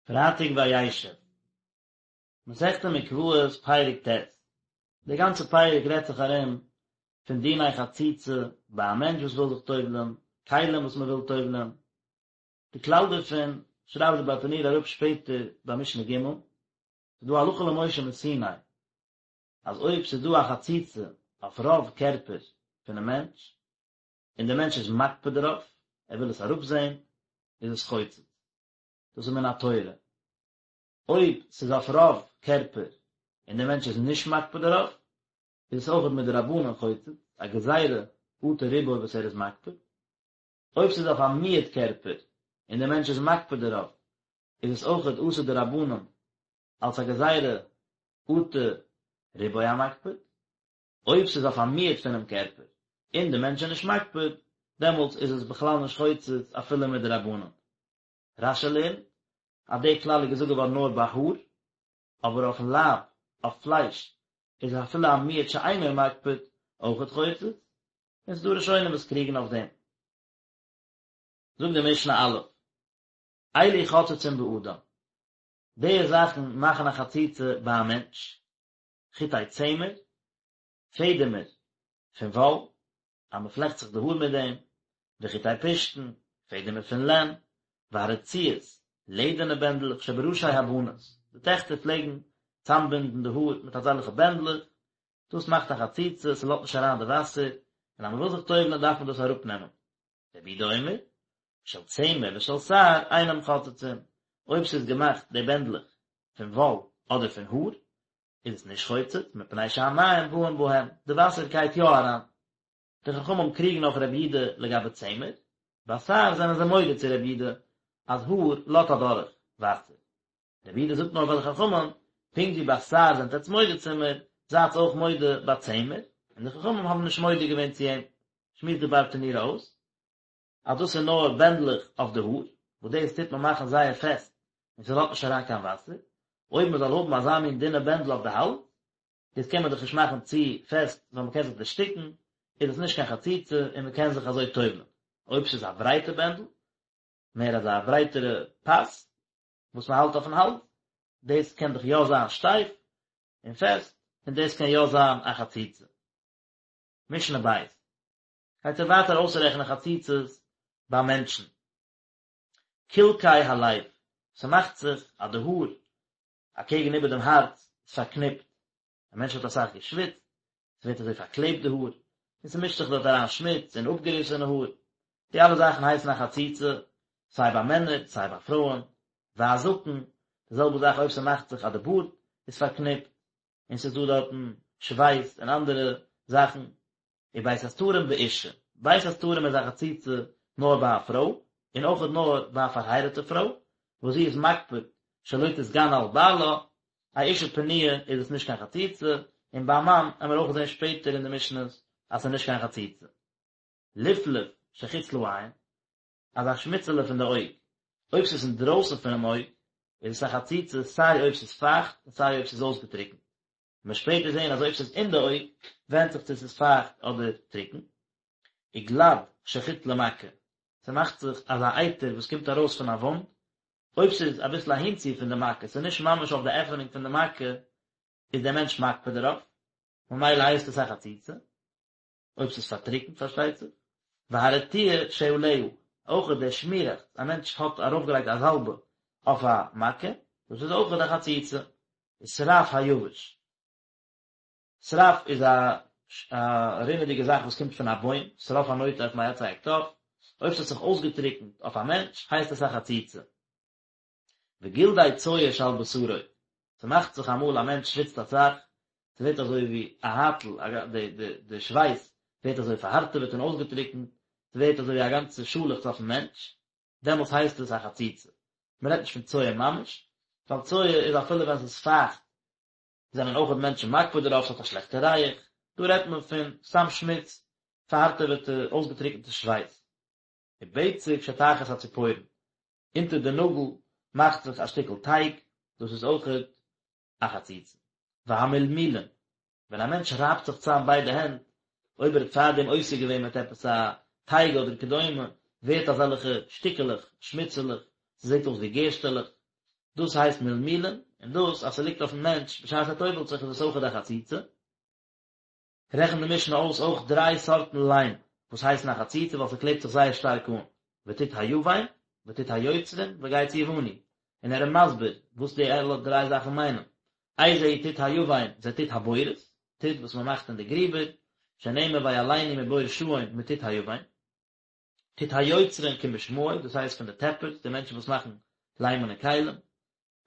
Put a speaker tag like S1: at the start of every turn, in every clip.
S1: פרייטאג וישב. מסכת מקוואות פרק ט'. די גאנצע פרק רעדט זיך ארום פון דיני חציצה ביי א מענטש וואס וויל זיך טובל'ן, כלים וואס מען וויל טובל'ן. די כלל דערפון שרייבט די ברטנורא אראפ שפעטער ביי משנה ג'. ס'איז דא הלכה למשה מסיני אז אויב ס'איז דא א חציצה אויף רוב קערפער פונעם מענטש, און דער מענטש איז מקפיד דערויף, ער וויל עס אראפזען, איז עס חוצץ. דאס איז מן התורה. אויב ס'איז אויף רוב קערפער און דער מענטש איז נישט מקפיד דערויף, איז עס אויכעט מדרבנן חוצץ, א גזירה אטו רובו וואס ער איז מקפיד. אויב ס'איז אויף א מיעוט קערפער און דער מענטש איז מקפיד דערויף, איז עס אויכעט אסור דרבנן אלס א גזירה אטו רובו המקפיד. אויב ס'איז אויף א מיעוט פונעם קערפער און די מענטש איז נישט מקפיד, דעמאלטס איז עס בכלל נישט חוצץ אפילו מדרבנן. רש"י לערנט אז די כלל איז געזאגט געווארן נאר ביי האר, אבער אויפן לייב, אויף פלייש, איז אפילו א מיעוט שאינו מקפיד אויכעט חוצץ, און ס'איז דא ראשונים וואס קריגן אויף דעם. זאגט די משנה א', אלו חוצצין באדם, די זאכן מאכן א חציצה ביי א מענטש, חוטי צמר, פעדעמער פון וואל, אז מען פלעכט זיך די האר מיט דעם, וחוטי פשתן, פעדעמער פון לען, והרצועות, לעדערנע בענדלעך שבראשי הבנות, די טעכטער פלעגן צאמבינדן די האר מיט אזעלכע בענדלעך, דאס מאכט א חציצה, ס'לאזט נישט אריין די וואסער, און אז מען וויל זיך טובל'ען דארף מען דאס אראפנעמען. רבי יהודה אומר, של צמר ושל שער אינם חוצצין, אויב ס'איז געמאכט די בענדלעך פון וואל אדער פון האר, איז עס נישט חוצץ, מפני שהמים באים בהם, די וואסער גייט יא אריין. די חכמים קריגן אויף רבי יהודה לגבי צמר, ביי שער זענען זיי מודה צו רבי יהודה אז האר לאזט אדורך וואסער. רבי יהודה זאגט נאר פאר די חכמים, פונקט ווי ביי שער זענט עטץ מודה צו מיר, זייטס אויך מודה ביי צמר, און די חכמים האבן נישט מודה געווען צו אים. שמועסט די ברטנורא אויס, אז דאס איז נאר בענדלעך אויף די האר, וואס דאס טוט מען מאכן זייער פעסט און ס'לאזט נישט אריין קיין וואסער, אויב מען זאל האבן אזא מין דינע בענדל אויף די האלז, דאס קען מען דאך נישט מאכן צו פעסט ווייל מען קען זיך דערשטיקן, איז עס נישט קיין חציצה און מען קען זיך אזוי טובל'ן. אויב ס'איז א ברייטע בענדל, מער אזא ברייטערע פאס, וואס מען האלט אויפן האלז, דאס קען דאך יא זיין שטייף און פעסט, און דאס קען יא זיין א חציצה. משנה בית. גייט ער ווייטער אויסרעכענען חציצות ביי מענטשן. קלקי הלב, ס'מאכט זיך אז די האר אקעגן איבער דעם הארץ איז פארקניפט, א מענטש האט אסאך געשוויצט, ס'ווערט אזוי פארקלעבט די האר, און ס'מישט זיך דארט אריין שמוץ און אפגעריסענע האר, די אלע זאכן הייסן א חציצה, סיי ביי מענער סיי ביי פרויען, והזקן, די זעלבע זאך אויב ס'מאכט זיך אז די בארד איז פארקניפט, און ס'איז דא דארטן שווייס און אנדערע זאכן, ובית הסתרים באשה, בית הסתרים איז א חציצה נאר ביי א פרוי, און אויכעט נאר ביי א פארהייראטע פרוי, וואס זי איז מקפיד שלא תתגנה על בעלה, א אישה פנויה איז עס נישט קיין חציצה, און ביי א מאן עמיר אויך זען שפעטער אין די משניות אז ס'איז נישט קיין חציצה. לפלוף שחוץ לעין, אזא שמיצעלע פון די אויג, אויב ס'איז אינדרויסן פונעם אויג, איז עס א חציצה סיי אויב ס'איז פייכט און סיי אויב ס'איז אויסגעטריקנט. מ'וועט שפעטער זען אז אויב ס'איז אין די אויג, ווענדט זיך צו ס'איז פייכט אדער טרוקן. וגלד שחוץ למכה, ס'מאכט זיך אזא אייטער וואס קומט ארויס פון א וואונד, אויב ס'איז אביסל אהינצו פון די מכה, ס'איז נישט ממש אויף די עפענונג פון די מכה, איז דער מענטש מקפיד דערויף, ממילא הייסט עס א חציצה. אויב ס'איז פארטריקנט פארשטייט זיך, והרטיה שעליה, אויך דער שמירעכץ, א מענטש האט ארויפגעלייגט א זאלבע אויף א מכה, דאס איז אויך א חציצה, ושרף היבש, שרף איז א א רינעדיגע זאך וואס קומט פון א בוים, שרף הנוטף מעצי הקטף, אויב ס'האט זיך אויסגעטריקנט אויף א מענטש הייסט עס א חציצה. וגלדי צואה שעל בשרו, ס'מאכט זיך אמאל א מענטש שוויצט אסאך, ס'ווערט אזוי ווי א הייטל, די שווייס ווערט אזוי פארהארטעוועט און אויסגעטריקנט, ס'ווערט אזוי ווי א גאנצע שאלעכץ אויפן מענטש, דעמאלטס הייסט עס א חציצה. מ'רעדט נישט פון צואה ממש, ווייל צואה איז אפילו ווען ס'איז פייכט זענען אויכעט מענטשן מקפיד דערויף, ס'האט א שלעכטע ריח, דא רעדט מען פון סתם שמוץ, פארהארטעוועטע אויסגעטריקנטע שווייס. ובצק שתחת הציפורן, אונטער די נאגל מאכט זיך א שטיקל טייג, דאס איז אויכעט א חציצה. והמלמולין, ווען א מענטש רייבט זיך צאם ביידע הענט, אויב ער האט פארדעם עוסק געווען מיט עפעס א טייג אדער כדומה, ווערט אזעלכע שטיקעלעך, שמיצעלעך, ס'זעט אויס ווי גערשטעלעך. דאס הייסט מלמולין, און דאס אז ס'ליגט אויפן מענטש בשעת ער טובל'ט זיך איז עס אויכעט א חציצה. רעכנט די משנה אויס אויך דריי סארטן ליים וואס הייסן א חציצה ווייל ס'קלעבט זיך זייער שטארק אן, וטיט היוון, וטיט היוצרין, וגץ יווני, און ער איז מסביר וואס די אלע דריי זאכן מיינען, איזהו טיט היוון, זה טיט הבורות, טיט וואס מ'מאכט אין די גריבער, שנאמר ויעלנו מבור שאון מטיט היוון. טיט היוצרין כמשמעו, דאס הייסט פון די טעפערס, די מענטשן וואס מאכן ליימענע כלים.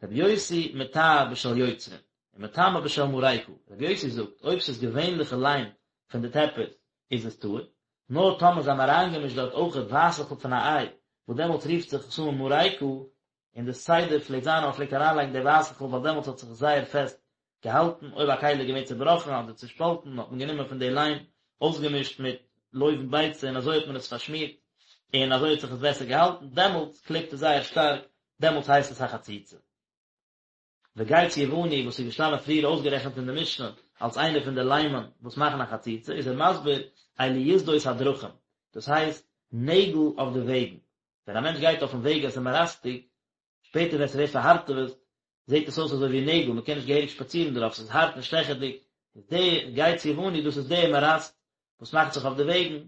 S1: רבי יוסי מטהר בשל יוצרין, ומטמא בשל מרקה, רבי יוסי זאגט, אויב ס'איז געווענליכע ליים פון די טעפערס, איז עס טהור, נאר טאמער זיי האבן אריינגעמישט דארט אויכעט ווייסעכל פון א איי, וואס דעמאלטס רופט זיך עס אן מרקה, און די סדר פלעגט זיין אז מען פלעגט אריינלייגן די ווייסעכל ווייל דעמאלטס האט זיך עס זייער פעסט געהאלטן, אויב א כלי איז געווען צובראכן אדער צושפאלטן האט מען גענומען פון די ליים, אויסגעמישט מיט לובן ביצה און אזוי האט מען עס פארשמירט, און אזוי האט זיך עס בעסער געהאלטן, דעמאלטס קלעבט עס זייער שטארק, דעמאלטס הייסט עס א חציצה. וגץ יווני וואס איז געשטאנען פריער אויסגערעכנט אין די משנה אלס איינער פון די ליימען וואס מאכן א חציצה, איז ער מסביר אלו יתדות הדרכים, דאס הייסט נעגל אויף די וועגן, ווען א מענטש גייט אויפן וועג עס איז מאראסטיג, שפעטער ווען ס'ווערט פארהארטעוועט זעט עס אויס אזוי ווי נעגל, מ'קען נישט געהעריג שפאצירן דערויף, ס'איז הארט און שטעכעדיג, איז די גץ יווני דאס איז די מאראסט וואס מאכט זיך אויף די וועגן,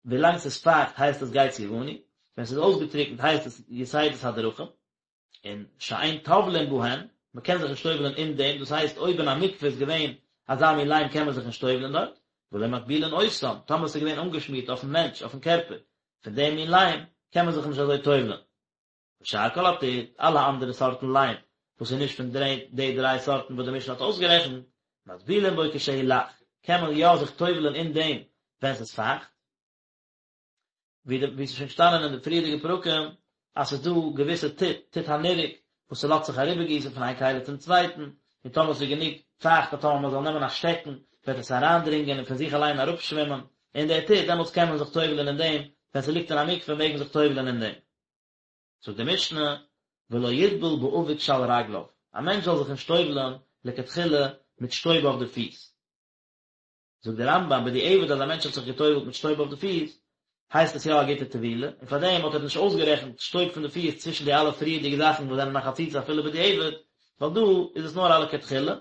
S1: ווילאנג ס'איז פייכט הייסט עס גץ יווני, ווען ס'איז אויסגעטריקנט הייסט עס יתדות הדרכים, און שאין טובלין בהן, מ'קען זיך נישט טובל'ען אין דעם, דאס הייסט אויב אין א מקווה איז געווען אזא מין ליים קען מען זיך נישט טובל'ען דארט, ולא מטבילין אותם, טאמער ס'איז געווען אנגעשמירט אויפן מענטש, אויפן קערפער, פון דעם מין ליים, קען מען זיך נישט אזוי טובל'ען. ושאר כל הטיט, אלע אנדערע סארטן ליים, וואס איז נישט פון די דריי סארטן וואס די משנה האט אויסגערעכנט, מטבילין בו כשהוא לח, קען מען יא זיך טובל'ען אין דעם ווען ס'איז פייכט, ווי די ווי ס'איז שוין געשטאנען אין די פריערדיגע פרקים, אז ס'איז דא געוויסע טיט, טיט הנרק, וואס ס'לאזט זיך אריבערגיסן פון איין כלי צום צווייטן, און טאמער ס'איז גענוג פייכט אז טאמער מ'זאל נעמען א שטעקן וועט עס אריינדרינגען און פון זיך אליין אראפשווימען אין די טיט, דעמאלטס קען מען זיך טובל'ען אין דעם, ווען ס'ליגט אין א מקווה מעג מען זיך טובל'ען אין דעם. זאגט די משנה, ולא יטבול באבק שעל רגליו, א מענטש זאל זיך נישט טובל'ען לכתחילה מיט שטויב אויף די פיס. זאגט דער רמב"ם, בדיעבד אז א מענטש האט זיך געטובל'ט מיט שטויב אויף די פיס, הייסט עס יא א גוטע טבילה, און פאר דעם האט ער נישט אויסגערעכנט שטויב פון די פיס צווישן די אלע פריערדיגע זאכן וואס זענען א חציצה אפילו בדיעבד, ווייל דא איז עס נאר א לכתחילה,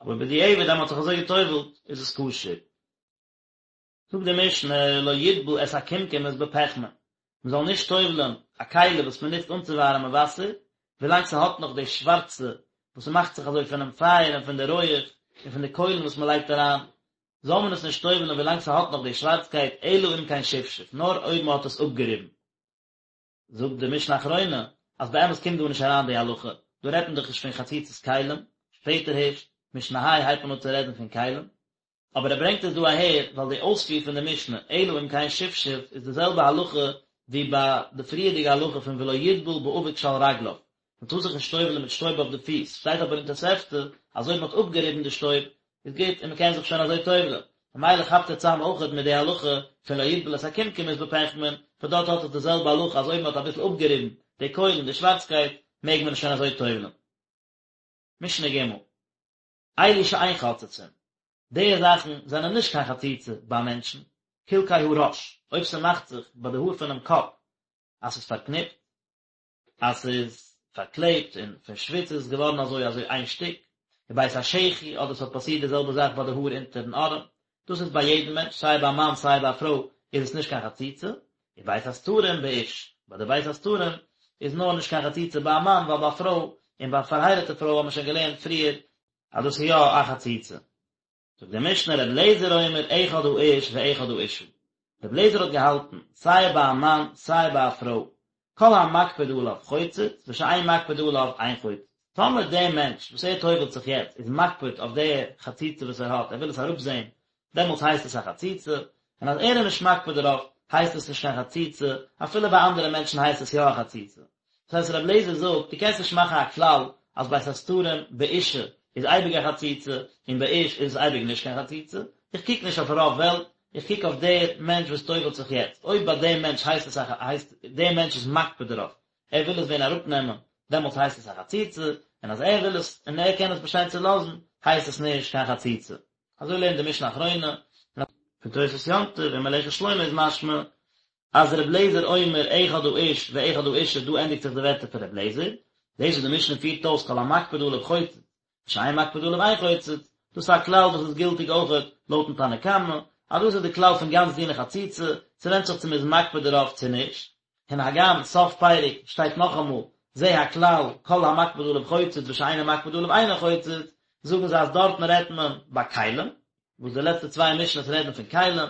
S1: אבער בדיעבד אז מען האט זיך אזוי געטובל'ט איז עס כשר. זאגט די משנה, לא יטבול את הקומקומית בפחמין, מען זאל נישט טובל'ען א כלי וואס מען נוצט אנצואווארעמען וואסער, ווילאנג ס'האט נאך די שווארצע וואס ס'מאכט זיך אזוי פונעם פייער און פון די רויעך און פון די קוילן וואס מען לייגט אריין, זאל מען עס נישט טובל'ען ווילאנג ס'האט נאך די שווארצקייט, אלא אם כן שפשף, נאר אויב מען האט עס אפגעריבן. זאגט די משנה אחרונה אז באמת קומט דא נישט אריין די הלכה, דא רעדט מען דאך נישט פון חציצת כלים, שפעטער הערשט, משנה ה' הייבט מען אן צו רעדן פון כלים, אבער ער ברענגט עס דא אהער ווייל די אויספיר פון די משנה אלא אם כן שפשף איז די זעלבע הלכה ווי ביי די פריערדיגע הלכה פון ולא יטבול באבק שעל רגליו, מען טאר זיך נישט טובל'ן מיט שטויב אויף די פיס, שטייט אבער אין תוספתא אז אויב מען האט אפגעריבן די שטויב איז גוט און מען קען זיך שוין אזוי טובל'ן, ממילא כאפט ער צאם אויכעט מיט די הלכה פון לא יטבול את הקומקומית בפחמין, פון דארט האט עס די זעלבע הלכה אז אויב מען האט אביסל אפגעריבן די קוילן די שווארצקייט מעג מען עס שוין אזוי טובל'ן. משנה ג' אלו שאין חוצצין, די זאכן זענען נישט קיין חציצה ביי מענטשן, קלקי הראש, אויב ס'מאכט זיך ביי די האר פונעם קאפ אז ס'איז פארקניפט, אז ס'איז פארקלעבט און פון שוויץ איז עס געווארן אזוי אזוי איין שטיק, ובית השחי, אדער ס'האט פאסירט די זעלבע זאך ביי די האר אונטערן ארעם, דאס איז ביי יעדן מענטש, סיי ביי א מאן סיי ביי א פרוי איז עס נישט קיין חציצה, ובית הסתרים באיש, ביי די בית הסתרים איז נאר נישט קיין חציצה ביי א מאן ווייל ביי א פרוי און ביי א פארהייראטע פרוי האט מען שוין געלערנט פריער אז דאס איז יא א חציצה. זאגט די משנה ר' אליעזר אומר אחד האיש ואחד האשה, ר' אליעזר האט געהאלטן סיי ביי א מאן סיי ביי א פרוי, כל המקפיד עליו חוצץ ושאין מקפיד עליו אין חוצץ, טאמער דער מענטש וואס ער טובל'ט זיך יעצט איז מקפיד אויף די חציצה וואס ער האט, ער וויל עס אראפזען, דעמאלטס הייסט עס א חציצה, און אז ער איז נישט מקפיד דערויף הייסט עס נישט קיין חציצה, אפילו ביי אנדערע מענטשן הייסט עס יא א חציצה. דאס הייסט רבי אליעזר זאגט, דו קענסט נישט מאכן א כלל אז בית הסתרים באישה איז אייביג א חציצה און באיש איז עס אייביג נישט קיין חציצה, איך קוק נישט אויף רוב וועלט, איך קוק אויף דער מענטש וואס טובל'ט זיך יעצט, אויב ביי דעם מענטש הייסט עס א הייסט דער מענטש איז מקפיד דערויף, ער וויל עס ווען אראפנעמען, דעמאלטס הייסט עס א חציצה, און אז ער וויל עס און ער קען עס באשטיין צו לאזן, הייסט עס נישט קיין חציצה. אזוי לערנט די משנה אחרונה, פון תוספות יום טוב און מלאכת שלמה איז משמע אז ר' לעזער אומר אחד האיש ואחד האשה דא ענדיגט זיך די ווערטער פון ר' לעזער, דאס וואס די משנה פירט אויס כל המקפיד עליו חוצץ, ושאין מקפיד עליו אין חוצץ, דאס איז א כלל וואס איז גילטיג אויכעט לויטן תנא קמא, אז דאס איז די כלל פון גאנץ דיני חציצה, ס'ווענדט זיך צו מ'איז מקפיד דערויף צו נישט. און הגם סוף פרק שטייט נאכאמאל זה הכלל כל המקפיד עליו חוצץ ושאינו מקפיד עליו אינו חוצץ, זאגן זיי אז דארטן רעדט מען ביי כלים, וואס די לעצטע צוויי משניות רעדן פון כלים,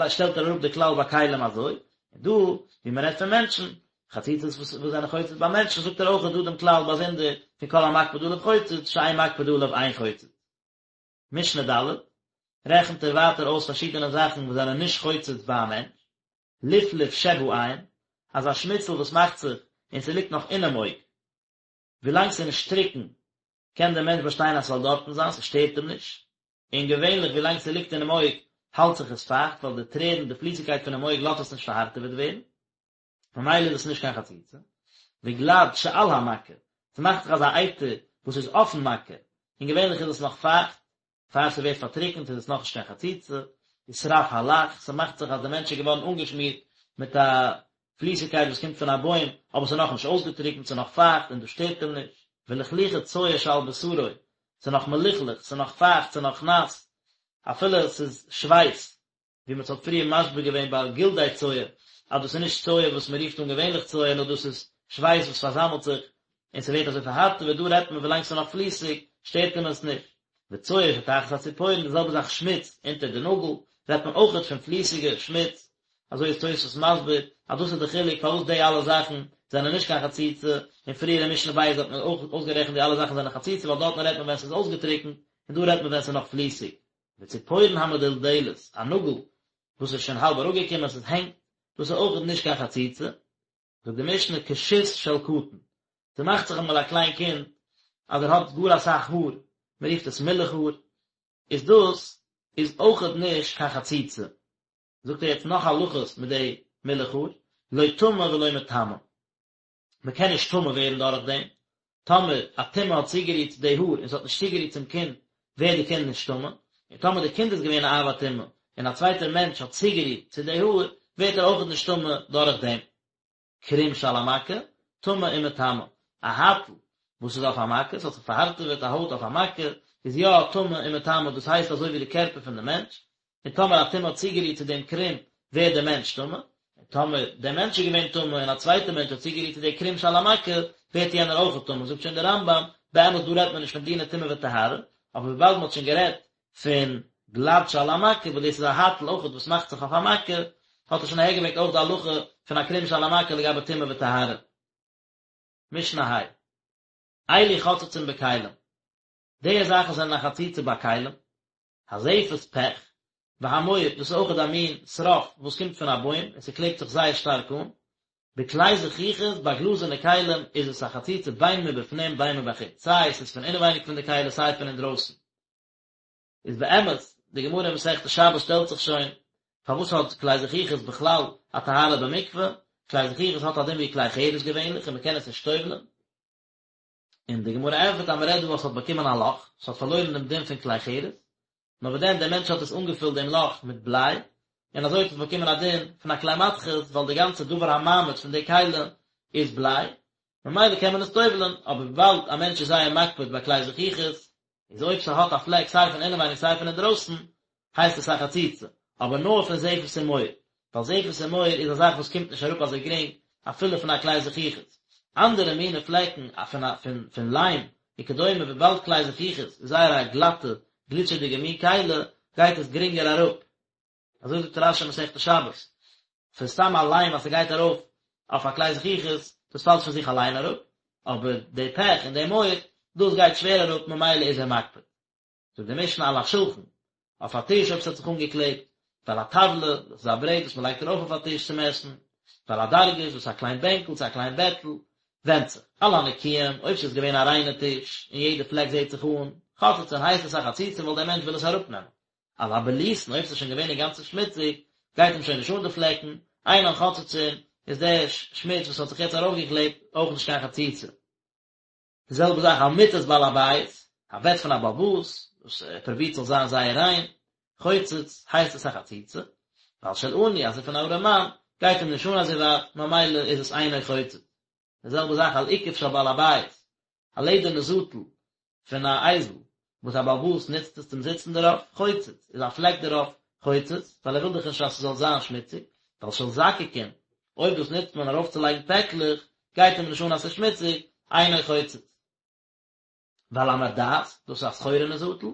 S1: שטעלט ער אראפ די כלל ביי כלים אזוי, און דא ווי מען רעדט פון מענטשן, חציצות וואס זענען חוצץ ביי מענטשן, זאגט ער אויך דא דעם כלל באזונדער פון כל המקפיד עליו חוצץ, שאין מקפיד עליו אין חוצץ. משנה ד', רעכנט ער ווייטער אויס פארשידענע זאכן וואס זענען נישט חוצץ ביי א מענטש, לפלוף שבעין, אזא שמיצל וואס מאכט זיך און ס'ליגט נאך אינעם אויג, ווילאנג ס'איז נישט טרוקן קען דער מענטש באשטיין אז ס'זאל דארטן זיין, ס'שטערט אים נישט, און געווענליך ווילאנג ס'ליגט אינעם אויג האלט זיך עס פייכט ווייל די טרערן, די פליסיגקייט פונעם אויג לאזט עס נישט פארהארטעוועט ווערן, ממילא איז עס נישט קיין חציצה. וגלד שעל המכה, ס'מאכט זיך אזא אייטער וואס איז אויפן מכה, און געווענליך איז עס נאך פייכט, פאר ס'ווערט פארטריקנט איז עס נאכנישט קיין חציצה, ושרף הלח, ס'מאכט זיך אז די מענטש איז געווארן אנגעשמירט מיט א פליסיגקייט וואס קומט פון א בוים, אבער ס'איז נאכנישט אויסגעטריקנט, ס'איז נאך פייכט און דאס שטערט אים נישט, ולכלוכי צואה שעל בשרו, ס'איז נאך מלוכלך, ס'איז נאך פייכט, ס'איז נאך נאס, אפילו ס'איז שווייס, ווי מען האט פריער מסביר געווען ביי גלדי צואה, אז דאס איז נישט צואה וואס מען רופט אן געווענליך צואה, נאר דאס איז שווייס וואס פארזאמלט זיך און ס'ווערט אזוי פארהארטעוועט, דא רעדט מען ווילאנג ס'איז נאך פליסיג, שטערט אים עס נישט. וצואה שתחת הציפורן, די זעלבע זאך שמוץ אונטער די נאגל, רעדט מען אויכעט פון פליסיגע שמוץ, אזוי איז תוספות מסביר, אז דאס איז די חילוק פארוואס די אלע זאכן זענען נישט קיין חציצה, און פריער אין משנה ב' האט מען אויך אויסגערעכנט די אלע זאכן זענען חציצה ווייל דארטן רעדט מען ווען ס'איז אויסגעטריקנט, און דא רעדט מען ווען ס'איז נאך פליסיג. וציפורן המדולדלת, א נאגל וואס איז שוין האלב אראפגעקומען, עס הענגט, דאס איז אויך נישט קיין חציצה. זאגט די משנה כשות של קטן, ס'מאכט זיך אמאל א קליין קינד אז ער האט גאר אסאך האר, מען רופט עס מילך האר, איז דאס איז אויכעט נישט קיין חציצה. זאגט ער יעצט נאך הלכות מיט די מילך האר, לא טמא ולא מטמא. מען קען נישט טמא ווערן דורך דעם, טאמער א טומאה האט צוגערירט צו די האר און ס'האט נישט צוגערירט צום קינד, ווערט די קינד נישט טמא, און טאמער די קינד איז געווען א אב הטומאה און א צווייטער מענטש האט צוגערירט צו די האר, ווערט ער אויכעט נישט טמא דורך דעם. קרום שעל המכה, טמא ומטמא, א הייטל וואס איז אויף א מכה, ס'האט זיך פארהארטעוועט א הויט אויף א מכה, איז יא טמא און מטמא, דאס הייסט אזוי ווי די קערפער פון די מענטש, און טאמער א טומאה האט צוגערירט צו דעם קרום, ווערט דער מענטש טמא, און טאמער דער מענטש איז געווען טמא און א צווייטער מענטש האט צוגערירט צו די קרום שעל המכה, ווערט יענער אויך טמא, זאגט שוין דער רמב"ם, באמת דא רעדט מען נישט פון דיני טומאה וטהרה, אבער וויבאלד מען האט שוין גערעדט פון גלד שעל המכה, וואס דאס איז א הייטל אויך וואס מאכט זיך אויף א מכה, האט ער שוין אהערגעברענגט אויך די הלכה פון א קרום שעל המכה לגבי טומאה וטהרה. משנה ה'. אלו חוצצין בכלים. די זאכן זענען א חציצה ביי כלים. הזפת פעך, והמור, דאס איז אויכעט א מין שרף וואס קומט פון א בוים און ס'קלעבט זיך זייער שטארק אן. בכלי זכוכית, ביי גלאזערנע כלים איז עס א חציצה בין מבפנים בין מבחוץ, סיי עס איז פון אינעווייניג פון די כלי סיי פון אינדרויסן. איז באמת, די גמרא אין מסכת שבת שטעלט זיך שוין, פארוואס האט כלי זכוכית בכלל א טהרה במקווה? כלי זכוכית האט א דין ווי כלי חרס געווענליך און מ'קען עס נישט טובל'ען. און די גמרא ענטפערט אז מ'רעדט דא אז ס'האט באקומען א לאך, ס'האט פארלוירן דעם דין פון כלי חרס, נאר וואס דען דער מענטש האט עס אנגעפילט דעם לאך מיט בליי, און אזוי האט עס באקומען א דין פון א כלי מתכות, ווייל די גאנצע דבר המעמיד פון די כלי איז בליי, ממילא קען מען עס טובל'ען, אבער וויבאלד א מענטש איז זייער מקפיד ביי כלי זכוכית, איז אויב ס'האט א פלעק סיי פון אינעווייניג סיי פון אינדרויסן, הייסט עס א חציצה, אבער נאר פון זפת און מור, ווייל זפת און מור איז א זאך וואס קומט נישט אראפ אזוי גרינג אפילו פון א כלי זכוכית. אנדערע מיני פלעקן פון פון פון ליים וכדומה וויבאלד כלי זכוכית איז זייער א גלאטע גליטשעדיגע מין כלי גייט עס גרינגער אראפ. אזוי זאגט רש"י מסכת שבת, פון סתם א ליים אז ס'גייט ארויף אויף א כלי זכוכית, דאס פאלט פון זיך אליין אראפ, אבער די פעך און די מור, דאס גייט שווער אראפ ממילא איז ער מקפיד. זאגט די משנה על השולחן, אויף א טיש אויב ס'האט זיך אנגעקלעבט, ועל הטבלה, דאס איז א ברעט וואס מ'לייגט ארויף אויף א טיש צום עסן, ועל הדרגש, דאס איז א קליין בענקל צו א קליין בעטל, ווענדט זיך, על הנקיים, אויב ס'איז געווען א ריינע טיש, און יעדע פלעק זעט זיך אן, חוצצין הייסט עס א חציצה ווייל דער מענטש וויל עס אראפנעמען. על הבלוסין, אויב ס'איז שוין געווען אינגאנצן שמוציג, גייט אים שוין נישט אן די פלעקן, אינן חוצצין, איז דער שמוץ וואס האט זיך יעצט ארויפגעקלעבט אויך נישט קיין חציצה. די זעלבע זאך על מיטת בעל הבית, א בעט פון א בעל הבית, וואס ער פרובירט זאל זיין זייער ריין, חוצץ, הייסט עס א חציצה, ועל של עני, אז ס'איז פון א ארעמאן, גייט אים נישט אן אזוי ווייט, ממילא איז עס אינו חוצץ. די זעלבע זאך על אוכף של בעל הבית, א לעדערנע זאטל פון א אייזל וואס א בעל הבית נוצט עס צום זיצן דערויף, חוצץ, איז א פלעק דערויף חוצץ, ווייל ער וויל דאך נישט אז ס'זאל זיין שמוציג, ווייל של זקקין, אויב דאס נוצט מען ארויפצולייגן פעקלעך, גייט אים נישט אן אז ס'איז שמוציג, אינו חוצץ. ועל המרדעת, דאס איז א סחורה'נע זאטל,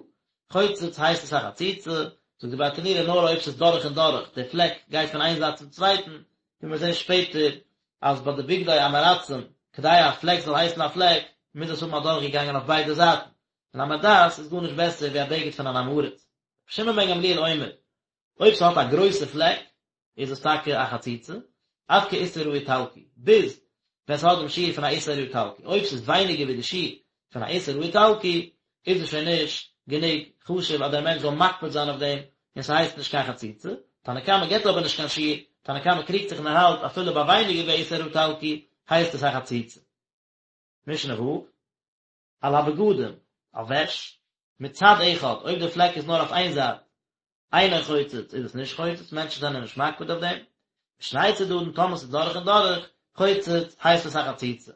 S1: חוצץ הייסט עס א חציצה, זאגט די ברטנורא נאר אויב ס'איז דורך און דורך, די פלעק גייט פון איין זייט צום צווייטן, ווי מיר זעהן שפעטער אז ביי די בגדי עם הארצים, כדי א פלעק זאל הייסן א פלעק, מוז עס האבן אדורכגעגאנגען אויף ביידע זייטן, און א מרדעת איז גארנישט בעסער ווי א בגד פון אן עם הארץ. רבי שמעון בן גמליאל אומר, אויב ס'האט א גרויסע פלעק, איז עס טאקע א חציצה, עד כאיסר האיטלקי, ביז ווען ס'האט דעם שיעור פון א איסר האיטלקי, אויב ס'איז ווייניגער ווי די שיעור פון א איסר האיטלקי, איז עס שוין נישט גענוג חשוב אז דער מענטש זאל מקפיד זיין אויף דעם, און ס'הייסט נישט קיין חציצה, תנא קמא גיבט אבער נישט קיין שיעור, תנא קמא קריגט זיך און ער האלט אפילו ביי ווייניגער ווי א איסר האיטלקי הייסט עס א חציצה. משנה ו', על הבגדים, אויף וועש, מצד אחד, אויב די פלעק איז נאר אויף איין זייט, אינו חוצץ, איז עס נישט חוצץ, מענטשן זענען נישט מקפיד אויף דעם, משני צדדים, טאמער ס'איז דורך און דורך, חוצץ, הייסט עס א חציצה.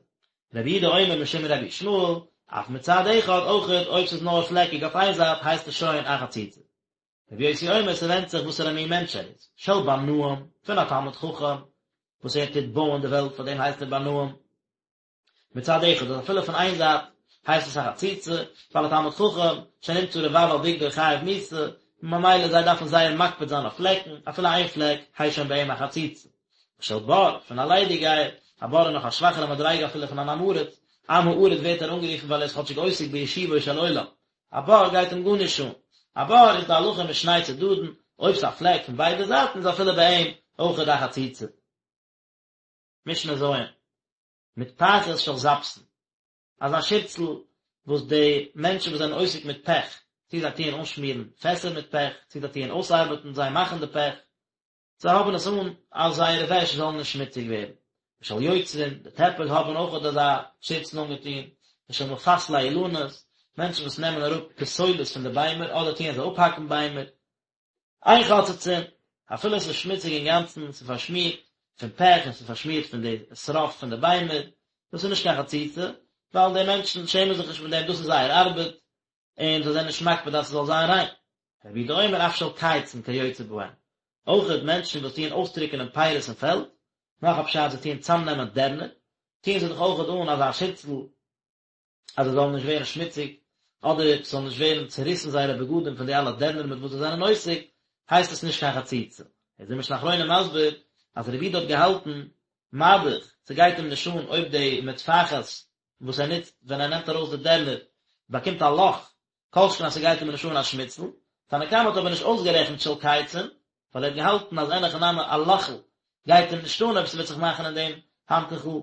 S1: רבי יהודה אומר משום רבי ישמעאל, אף מצד אחד, אויכעט אויב ס'איז נאר פלעקיג אויף איין זייט, הייסט עס שוין א חציצה. רבי יוסי אומר, ס'ווענדט זיך וואסערע מין מענטש ער איז, של בנאים, פון א תלמיד חכם, וואס ער טוט בויען די וועלט, פאר דעם הייסט ער בנאים. מצד אחד אז אפילו פון איין זייט הייסט עס א חציצה, ווייל א תלמיד חכם שנמצא רבב על בגדו חייב מיתה, ממילא זיי דארפן זייער מקפיד זיין אויף פלעקן, אפילו איין פלעק הייסט שוין ביי אים א חציצה. ושל בור, פון א ליידיגייער, א בור איז נאך א שוואכערע מדריגה אפילו פון אן עם הארץ, עם הארץ ווערט ער אנגערופן ווייל ער איז כאטשיג עוסק בישובו של עולם, א בור גייט אים גארנישט אן, א בור איז די הלכה משני צדדין, אויב ס'איז א פלעק פון ביידע זייטן איז אפילו ביי אים אויכעט א חציצה. משנה ז'. מטפחת של זפתין, אזא שירצל וואס די מענטשן וואס זענען עוסק מיט פעך, צו זיי טוען אנשמירן פעסער מיט פעך, צו זיי טוען אויסארבעטן, זיי מאכן די פעך, זיי האבן עס אן אז זייערע וועש זאלן נישט שמוציג ווערן. ושל יוצרין, די טעפער האבן אויך אזא שירצל אנגעטון, ושל מפסלי אילנות, מענטשן וואס נעמען אראפ פסולת פון די ביימער, אדער טוען זיי אפהאקן ביימער, אין חוצצין, אפילו עס איז שמוציג אינגאנצן, ס'איז פארשמירט פון פעך און ס'איז פארשמירט פון די שרף פון די ביימער, דאס איז נישט קיין חציצה, ווייל די מענטשן שעמען זיך נישט מיט דעם, דאס איז זייער ארבעט, און זיי זענען נישט מקפיד אז ס'זאל זיין ריין. רבי יהודה אומר אף של קייצין כיוצא בהן, אויכעט מענטשן וואס טוען אויסטריקענען פירות אין פעלד, נאך א פשט זיי טוען צאמנעמען דערנער, טוען זיי דאך אויכעט אן אזא שירצל, אז זיי זאלן נישט ווערן שמוציג, אדער ס'זאל נישט ווערן צוריסן זייערע בגדים פון די אלע דערנער מיט וואס זיי זענען עוסק, הייסט עס נישט קיין חציצה. איז די משנה אחרונה מסביר אז רבי יהודה האט געהאלטן, מה דאך, ס'גייט אים נישט אן אויב די מטפחת וואס ער נוצט ווען ער נעמט ארויס די דערנער באקומט א לאך, כל שכן אז ס'גייט אים נישט אן א שמיצל. תנא קמא האט אבער נישט אויסגערעכנט של קייצין, ווייל ער האט געהאלטן אז אין הכי נמי א לאכל גייט אים נישט אן אויב ס'וועט זיך מאכן אין דעם האנטוכל,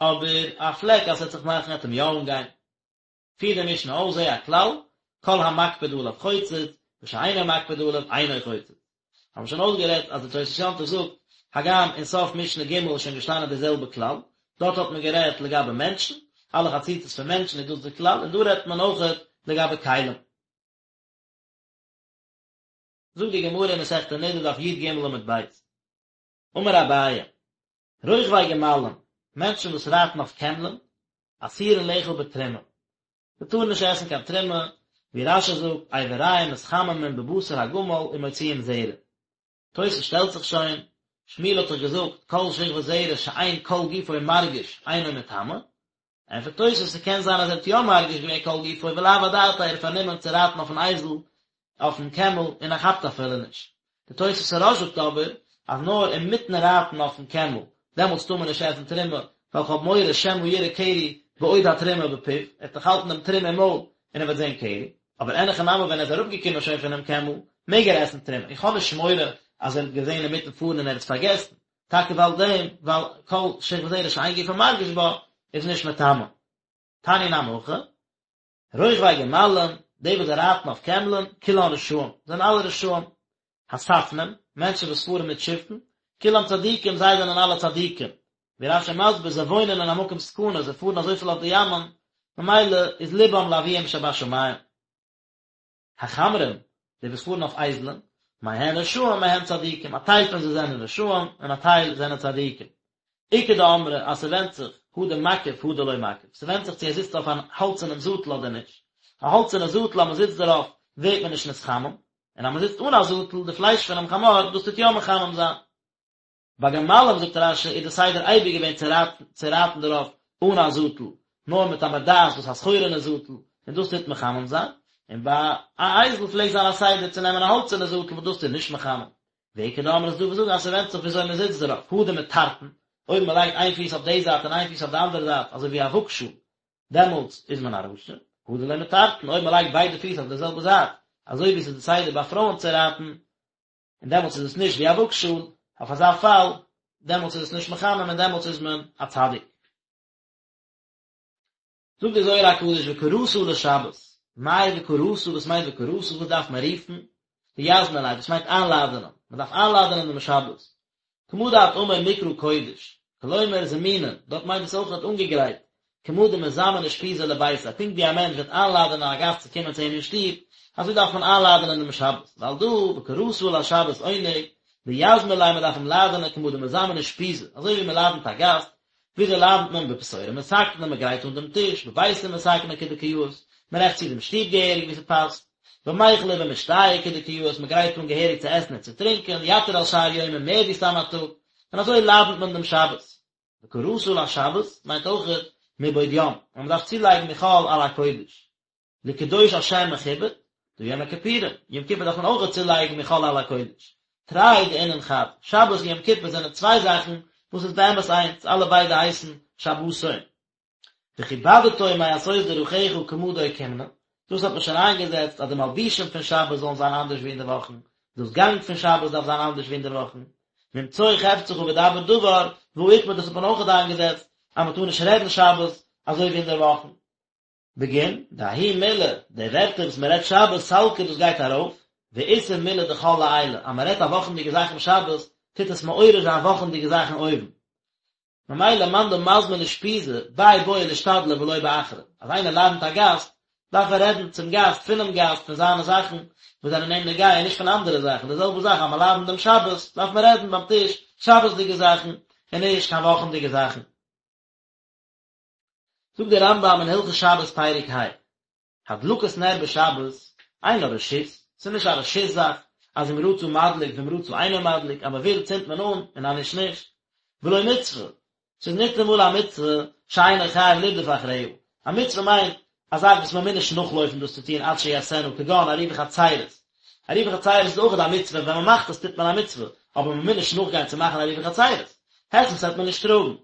S1: אבער א פלעק אז ס'וועט זיך מאכן וועט אים יא אנגיין. פירט די משנה אויס זה הכלל, כל המקפיד עליו חוצץ, ושאינו מקפיד עליו אינו חוצץ. האבן מיר שוין אויסגערעדט אז די תוס' יום טוב זאגט, הגם אין סוף משנה ג' איז שוין געשטאנען די זעלבע כלל, דארט האט מען גערעדט לגבי מענטשן, אלע חציצות פון מענטשן איז דאס די כלל, און דא רעדט מען אויכעט לגבי כלים. זאגט די גמרא אין מסכת נדה דף י"ג עמוד ב', אמר אביי, רוכבי גמלים, מענטשן וואס רייטן אויף קעמלען, אסורין לאכול בתרומה, זיי טארן נישט עסן קיין תרומה, ווי רש"י זאגט, אבריהם מתחממים בבשר הגמל ומוציאים זרע. תוס' שטעלט זיך שוין, שמואל האט דאך געזאגט, כל שכבת זרע שאין כל גופו מרגיש אינו מטמא, ענטפערט תוס' ס'קען זיין אז ער האט יא מרגיש געווען כל גופו ולאו אדעתיה ער איז פארנומען צו רייטן אויפן אייזל אויפן קעמל און ער כאפט אפילו נישט. די תוס' הרא"ש זאגט אבער אז נאר אינמיטן רייטן אויפן קעמל דעמאלטס טאר מען נישט עסן תרומה ווייל כ'האב מורא שמא יראה קרי בעוד התרומה בפיו, ער וועט דאך האלטן דעם תרומה אין מויל און ער וועט זען קרי, אבער אין הכי נמי ווען ער איז אראפגעקומען שוין פונעם קעמל מעג ער עסן תרומה, איך האב נישט מורא אז ער האט געזען אינמיטן פארן און ער האט עס פארגעסן, טאקע ווייל דעם, ווייל כל שכבת זרע שאין גופו מרגיש בה, איז נישט מטמא. תניא נמי הכי, רוכבי גמלים, די וואס רייטן אויף קעמלען, כולן רשעים, זענען אלע רשעים. הספנים, מענטשן וואס פארן מיט שיפן, כולם צדיקים, זיי זענען אלע צדיקים. ווי רש"י מסביר, זיי וואוינען אין א מקום סכנה, זיי פארן אזויפיל אויף די ימ'ען, ממילא איז לבם לאביהם שבשמים. החמרים, די וואס פארן אויף אייזלען, מהן רשעים מהן צדיקים, א טייל פון זיי זענען רשעים און א טייל זענען צדיקים. איכא דאמרי אז ס'ווענדט זיך. הא דמקיף הא דלא מקיף, ס'ווענדט זיך צו ער זיצט אויף א האלצערנעם זאטל אדער נישט, א האלצערנע זאטל אז מ'זיצט דערויף ווערט מען נישט נתחמם, און אז מ'זיצט אן א זאטל, די פלייש פונעם חמור, דאס טוט יא מחמם זיין. ביי גמלים זאגט רש"י איז די סדר אייביג געווען צו רייטן צו רייטן דערויף אן א זאטל, נאר מיט א מרדעת וואס א סחורה'נע זאטל, און דאס טוט מחמם זיין, און ביי א אייזל פלעגט זיין א סדר צו נעמען א האלצערנע זאטל וואס דאס טוט נישט מחמם. ואיכא דאמרי ס'איז דא וואס זאגן אז ס'ווענדט זיך וויאזוי מ'זיצט דערויף, הא דמטרטין, אויב מ'לייגט איין פיס אויף די זייט און איין פיס אויף די אנדערע זייט אזוי ווי א וואגשאל, דעמאלטס איז מען א רשע, הא דלא מטרטין, אויב מ'לייגט ביידע פיס אויף די זעלבע זייט, אזוי ווי ס'איז די סדר ביי פרויען צו רייטן, און דעמאלטס איז עס נישט ווי א וואגשאל, אויף אזא פאל, דעמאלטס איז עס נישט מחמם און דעמאלטס איז מען א צדיק. זאגט דער זוהר הקדוש וקראת לשבת, מאי וקראת, וואס מיינט וקראת, וואס דארף מען רופן? דיזמין ליה, דאס מיינט איינלאדענען, מען דארף איינלאדענען דעם שבת. כמה דאת אמר מקרא קודש, כלומר זמינין, דארט מיינט עס אויך אנגעגרייט, כמה דמזמן אושפיזא לביתיה, פונקט ווי א מענטש וועט איינלאדענען א גאסט צו קומען צו אים אין שטוב, אזוי דארף מען איינלאדענען דעם שבת, ועל דא וקראת לשבת עונג, דיזמין ליה מען דארף אים לאדענען כמה דמזמן אושפיזא, אזוי ווי מען לאדענט א גאסט, וויאזוי לאדענט מען בפתורא מתקנא, מען גרייט אן דעם טיש, בביתא מתקנא כדקא יאות, מען רעכט צו דעם שטוב געהעריג ווי ס'פאסט, במיכלא ובמשתייא כדקא יאות, מען גרייט אן געהעריג צו עסן און צו טרינקען, יתיר על שאר יומין מער ווי סתם א טאג, און אזוי לאדענט מען דעם שבת. וקראת לשבת מיינט אויכעט מבעוד יום, אז מען דארף צולייגן מחול על הקודש. לקדוש על שם מכובד, דהא יום הכיפורים, יום כיפור דארף מען אויכעט צולייגן מחול על הקודש. תרי דאינון חד, שבת און יום כיפור זענען צוויי זאכן וואס איז באמת איינס, אלע ביידע הייסן שבתון. וכבדתו מעשות דרכיך כמה דאוקימנא, דאס האט מען שוין איינגעזעצט אז די מלבישים פון שבת זאלן זיין אנדערש ווי אינדערוואכן, דאס גאנג פון שבת דארף זיין אנדערש ווי אינדערוואכן, ממצוא חפצך ודבר דבר, והא אוקמה דאס האט מען אויכעט איינגעזעצט אז מען טאר נישט רעדן שבת אזוי ווי אינדערוואכן. בגין דההוא מילי, די ווערטער וואס מען רעדט שבת סלקא דאס גייט ארויף, ואתער מילי דחול לעילא, אז מען רעדט א וואכענדיגע זאך אום שבת, טוט עס מעורר זיין וואכענדיגע זאכן אויבן. ממילא מאן דמזמין אושפיזא, ביה בעי לאשתדלא ולא באחרא, אז איינער לאדענט א גאסט, דארף ער רעדן צום גאסט, פונעם גאסט, פון זיינע זאכן וואס זענען אים נוגע און נישט פון אנדערע זאכן, די זעלבע זאך אז מען לאדענט דעם שבת, דארף מען רעדן ביים טיש שבת'דיגע זאכן, און נישט קיין וואכענדיגע זאכן. זאגט דער רמב"ם אין הלכות שבת פרק ה, הדלקת נר בשבת אינה רשות, ס'איז נישט א רשות זאך, אז אם רצה מדליק ואם רצה אינו מדליק, אז מ'וויל צינדט מען אן און אז נישט נישט, ולא מצוה, ס'איז ניטאמאל א מצוה שאינו חייב לרדוף אחריה, א מצוה מיינט א זאך וואס מ'מוז נישט נאכלויפן דאס צו טון עד שיעשנה, כגון עירובי חצירות, עירובי חצירות איז אויך א מצוה, ווען מ'מאכט עס טוט מען א מצוה, אבער מ'מוז נישט נאכגיין צו מאכן עירובי חצירות, היסט וועט מען נישט טראגן.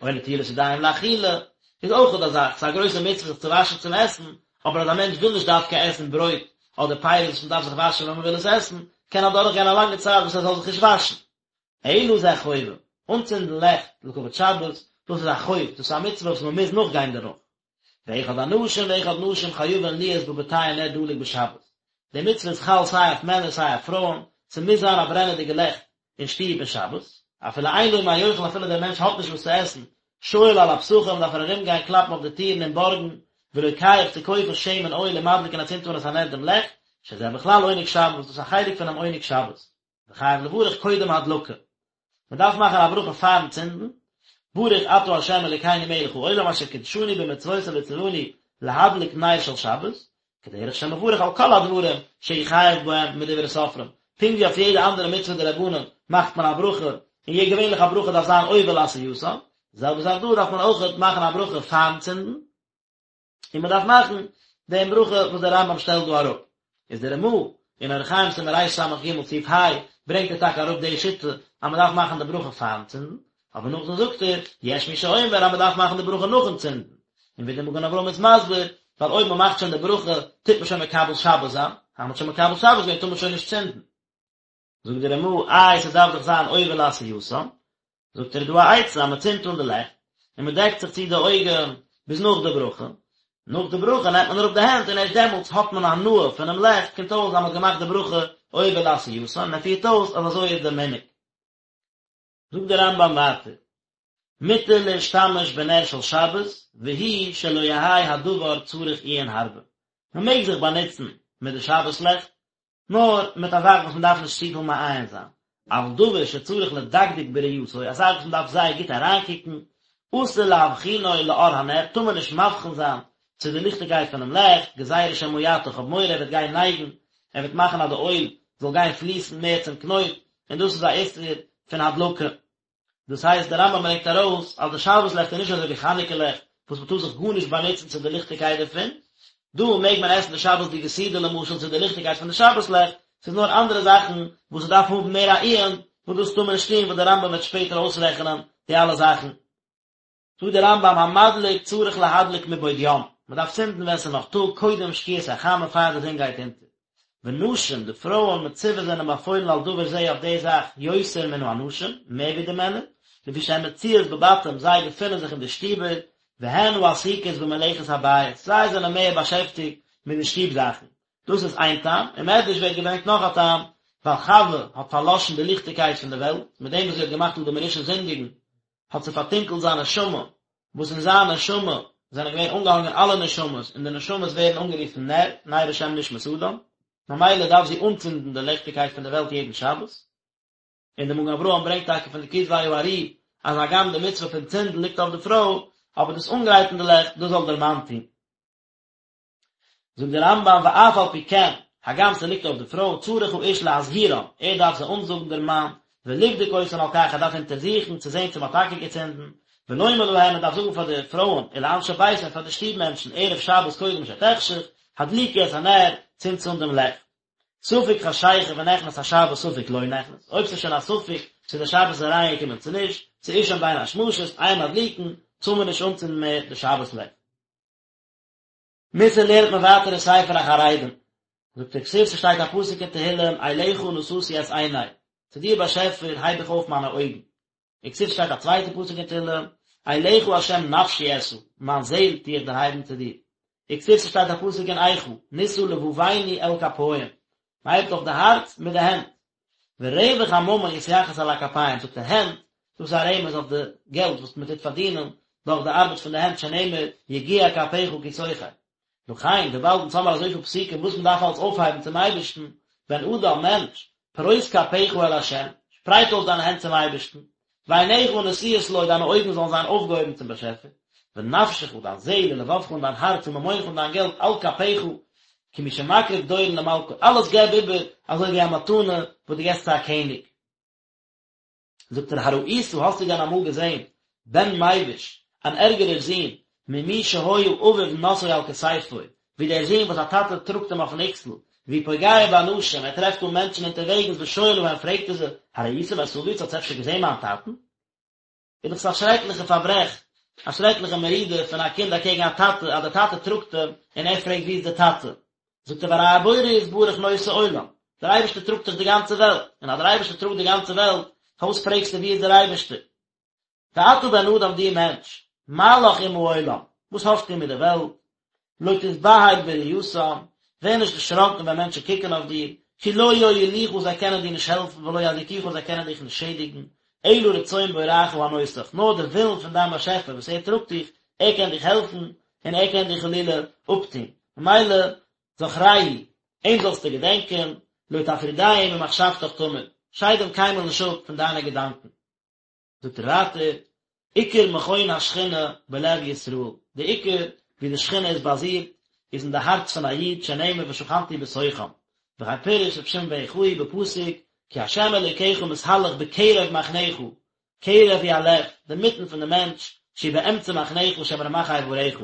S1: או נטילת ידיים לאכילה, איז אויך א זאך, ס'איז א גרויסע מצוה זיך צו וואשן צום עסן, אבער אז א מענטש וויל נישט דווקא עסן ברויט אדער פירות וואס מ'דארף זיך וואשן ווען מ'וויל עס עסן, קען אדורך גיין א לאנגע צייט וואס ער זאל זיך נישט וואשן. אלא זה חובה, אנצינדן לעכט לכבוד שבת, דאס איז א חוב, דאס איז א מצוה וואס מ'מוז נאכגיין דערנאך. ואחד אנשים ואחד נשים חייבין להיות בבתיהן נר דלוק בשבת, די מצוה איז חל סיי אויף מענער סיי אויף פרויען, ס'מוז זיין א ברענעדיגע לעכט אין שטוב אין שבת, אפילו אין לו מה יאכל אפילו דער מענטש האט נישט וואס צו עסן, שואל על הפתחים דארף ער ארום גיין קלאפן אויף די טירן און בארגן, ולוקח צו קויפן שמן אויל ומדליק און ער צינדט אן את הנר דעם לעכט, שזה בכלל עונג שבת דאס איז א חלק פונעם עונג שבת. וחייב לברך קודם הדלקה. מען דארף מאכן א ברכה פארן צינדן, ברוך אתה ה' אלוקינו מלך העולם אשר קדשנו במצוותיו וציוונו להדליק נר של שבת, כדרך שמברך על כל הדברים שהוא חייב בהם מדברי סופרים, פונקט ווי אויף יעדע אנדערע מצוה דרבנן מאכט מען א ברכה, און יע געווענליך א ברכה דארף זיין עובר לעשייתן, די זעלבע זאך דא דארף מען אויכעט מאכן א ברכה פארן צינדן, און מען דארף מאכן דעם ברכה וואס דער רמב"ם שטעלט דא אראפ, איז דער רמ"א אין אורח חיים סימן רס"ג סעיף ה' ברענגט ער טאקע אראפ די שיטה אז מען דארף מאכן די ברכה פארן צינדן, אבער נאכדעם זאגט ער, יש מי שאומר אז מען דארף מאכן די ברכה נאכן צינדן, און ווי דער מגן אברהם איז מסביר, ווייל אויב מען מאכט שוין די ברכה טוט מען שוין מקבל שבת זיין, אז מען האט שוין מקבל שבת געווען טאר מען שוין נישט צינדן. זאגט דער רמ"א, איי ס'דארף דאך זיין עובר לעשייתן, זאגט ער איז דא א עצה אז מ'צינדט אן די לעכט, און מ'דעקט זיך צו די אויגן ביז נאך די ברכה, נאך די ברכה נעמט מען אראפ די הענט און ערשט דעמאלטס האט מען הנאה פונעם לעכט, קומט אויס אז מ'האט געמאכט די ברכה עובר לעשייתן, און ער פירט אויס אז אזוי איז דער מנהג. זאגט דער רמב"ם ווייטער, מותר להשתמש בנר של שבת, והוא שלא יהא הדבר צריך עיון הרבה, מ'מעג זיך באנוצן מיט די שבת לעכט, נאר מיט א זאך וואס מען דארף נישט צופיל מעיין זיין, אבל דבר שצריך לדקדק בראייתו, א זאך וואס מען דארף זייער גוט אריינקוקן, אסור להבחינו לאור הנר, טאר מען נישט מבחין זיין צו די ליכטיגקייט פונעם לעכט, גזירה שמא יטה, כ'האב מורא ער וועט גיין נייגן, ער וועט מאכן אז די אויל זאל גיין פליסן מער צום קנויט, און דאס איז א איסור פון הדלקה. דאס הייסט דער רמב"ם ברענגט ארויס אז די שבת לעכט איז נישט אזוי ווי חנוכה לעכט וואס מען טאר זיך גארנישט באנוצן צו די ליכטיגקייט דערפון, דא מעג מען עסן די שבת'דיגע סעודה למשל צו די ליכטיגקייט פון די שבת לעכט, ס'איז נאר אנדערע זאכן וואס ס'דארף האבן מער א עיון וואס דאס טאר מען נישט טון וואס דער רמב"ם וועט שפעטער אויסרעכענען די אלע זאכן. זאגט דער רמב"ם המדליק צריך להדליק מבעוד יום, מען דארף צינדן ווען ס'איז נאך טאג קודם שקיעת החמה פאר די זון גייט אונטער. ונשים, די פרויען מצוות זענען באפוילן על דבר זה אויף די זאך יותר מן האנשים, מער ווי די מענער, לפי שהן מצויות בבתים זיי געפינען זיך אין די שטיבער, והן העסוקות במלאכת הבית, זיי זענען מער באשעפטיגט מיט די שטוב זאכן. דאס איז איין טעם, אין מדרש ווערט געברענגט נאך א טעם, ווייל חווה האט פארלאשן די ליכטיגקייט פון די וועלט, מיט דעם וואס זי האט געמאכט אדם הראשון זינדיגן, האט זי פארטונקלט זיין נשמה, וואס אין זיין נשמה זענען געווען אנגעהאנגען אלע נשמות, און די נשמות ווערן אנגערופן נר, נר השם נשמת אדם, ממילא דארף זי אנצינדן די ליכטיגקייט פון די וועלט יעדן שבת. און דער מגן אברהם ברענגט טאקע פון די כתבי האר"י אז הגם די מצוה פון צינדן ליגט אויף די פרוי, אבער דאס אנגרייטן די לעכט, דאס זאל דער מאן טון. זאגט דער רמב"ם ואף על פי כן, הגם ס'ליגט אויף די פרוי, צריך האיש להזהירן, ער דארף זיי אנזאגן דער מאן, ולבדוק אותן על כך, ער דארף אונטערזוכן צו זען צו מ'האט טאקע געצינדן, ולומר להן, ער דארף זאגן פאר די פרויען, ולאנשי ביתו און פאר די שטוב מענטשן, ערב שבת קודם שתחשך, הדליקו את הנר, צינדטס אן דעם לעכט. ספק חשיכה ונכנס השבת ספק לא נכנס, אויב ס'איז שוין א ספק צו די שבת איז אריינגעקומען צו נישט, ס'איז שוין בין השמשות, אין מדליקין, טאר מען נישט אנצינדן מער די שבת לעכט. מוסר לערנט מען ווייטער אין ספר החרדים, זאגט ער כתיב ס'שטייט א פסוק אין תהילים אליך נשאתי את עיני, צו דיר באשעפער הייב איך אויף מיינע אויגן, וכתיב ס'שטייט א צווייטע פסוק אין תהילים אליך ה' נפשי אשא, מיין זעהל טו איך דערהייבן צו דיר, וכתיב ס'שטייט א פסוק אין איכה נשא לבבנו אל כפים, מ'הייבט אויף די הארץ מיט די הענט, ורווח הממון יתייחס אל הכפיים, זאגט ער הענט, דאס איז א רמז אויף די געלט וואס מען טוט פארדינען דורך די ארבעט פון די הענט שנאמר יגיע כפיך כי תאכל. לכן, וויבאלד אונז האמער אזויפיל פסוקים וואס מען דארף אלץ אויפהייבן צום אייבערשטן, בן אדם, מענטש, פרוס כפיך אל ה', שפרייט אויס דיינע הענט צום אייבערשטן, ועיניך נשואות לו, דיינע אויגן זאלן זיין אויפגעהויבן צום באשעפער, ונפשך, דיין זעהל, ולבבך און דיין הארץ, וממונך און דיין געלט, על כפיך, כמי שמקריב דורון למלכו, אלעס געב איבער אזוי ווי א מתנה וואס דו געסט צו א קעניג. זאגט ער, הראית, האסטו דען אמאל געזעהן, בן מביש, אן ערגערער זון, ממי שהיה אביו נושאו על כתפו, ווי דער זון וואס א טאטע טראגט אים אויפן אקסל, והוא פוגע באנשים, ער טרעפט אן מענטשן אונטערוועגנס ושואל להם פרעגט ער זיי, הראיתם את אבי, האטס אפשר געזען מיין טאטן? איז דאך עס א שרעקליכע פארברעך, א שרעקליכע מרידה פון א קינד אקעגן א טאטע, אז דער טאטע טראגט אים און ער פרעגט ווי איז דער טאטע? זאגט ער והרי הבורא יתברך נושא עולם, דער אייבערשטער טראגט דאך די גאנצע וועלט, און אז דער אייבערשטער טראגט די גאנצע וועלט, פארוואס פרעגסטו ווי איז דער אייבערשטער? ואתה בן אדם דו מענטש, מה לך עם העולם, וואס האסטו מיט די וועלט? לא תתבהל בראותם, ווער נישט דערשראקן ווען מענטשן קוקן אויף דיר, כי לא יועילוך זיי קענען דיר נישט העלפן ולא יזיקוך זיי קענען דיך נישט שעדיגן, אלא רצון בוראך הנושאך, נאר דער ווילן פון דיין באשעפער וואס ער טראגט דיך, ער קען דיך העלפן, און ער קען דיך חלילה אפטון, ממילא זכרהו, אים זאלסטו געדענקען, לא תפרידהו ממחשבתך תמיד, שייד אים קיינמאל נישט אפ פון דיינע געדאנקען. זאגט ער ווייטער, עיקר מכון השכינה בלב ישראל, די עיקר ווי די שכינה איז באזירט איז אין די הארץ פון א איד שנאמר ושכנתי בתוכם, וכן פירש רבי שמעון בן יוחאי בפסוק כי ה' אלוקיך מתהלך בקרב מחניך, קרב הוא הלב, די מיטן פון די מענטש, שהוא באמצע מחניך שהם רמ"ח אבריך.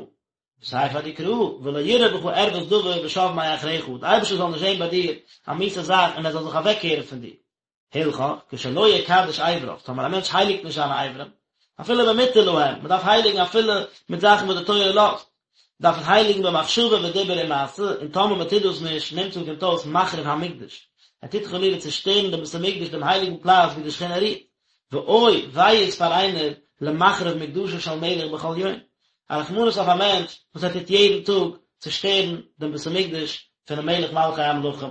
S1: וסיפא דקרא, ולא יראה בך ערות דבר ושב מאחריך, די אייבערשטער זאל נישט זען ביי דיר א מיאוסע זאך און ער זאל זיך אוועקקערן פון דיר. הלכך, כשלא יקדש אבריו, טאמער א מענטש הייליגט נישט זיינע אברים, אפילו במותר להם, מען דארף הייליגן אפילו מיט זאכן וואס די תורה לאזט, דארף עס הייליגן במחשבה ודיבור ומעשה, און טאמער מען טוט דאס נישט, נמצא קומט אויס מחריב המקדש, ער טוט חלילה צושטערן דעם בית המקדש דעם הייליגן פלאץ ווי די שכינה רוהט, ואוי וויי איז פאר איינער למחריב מקדשו של מלך בכל יום, א רחמנות אויף א מענטש וואס ער טוט יעדן טאג צושטערן דעם בית המקדש פונעם מלך מלכי המלכים.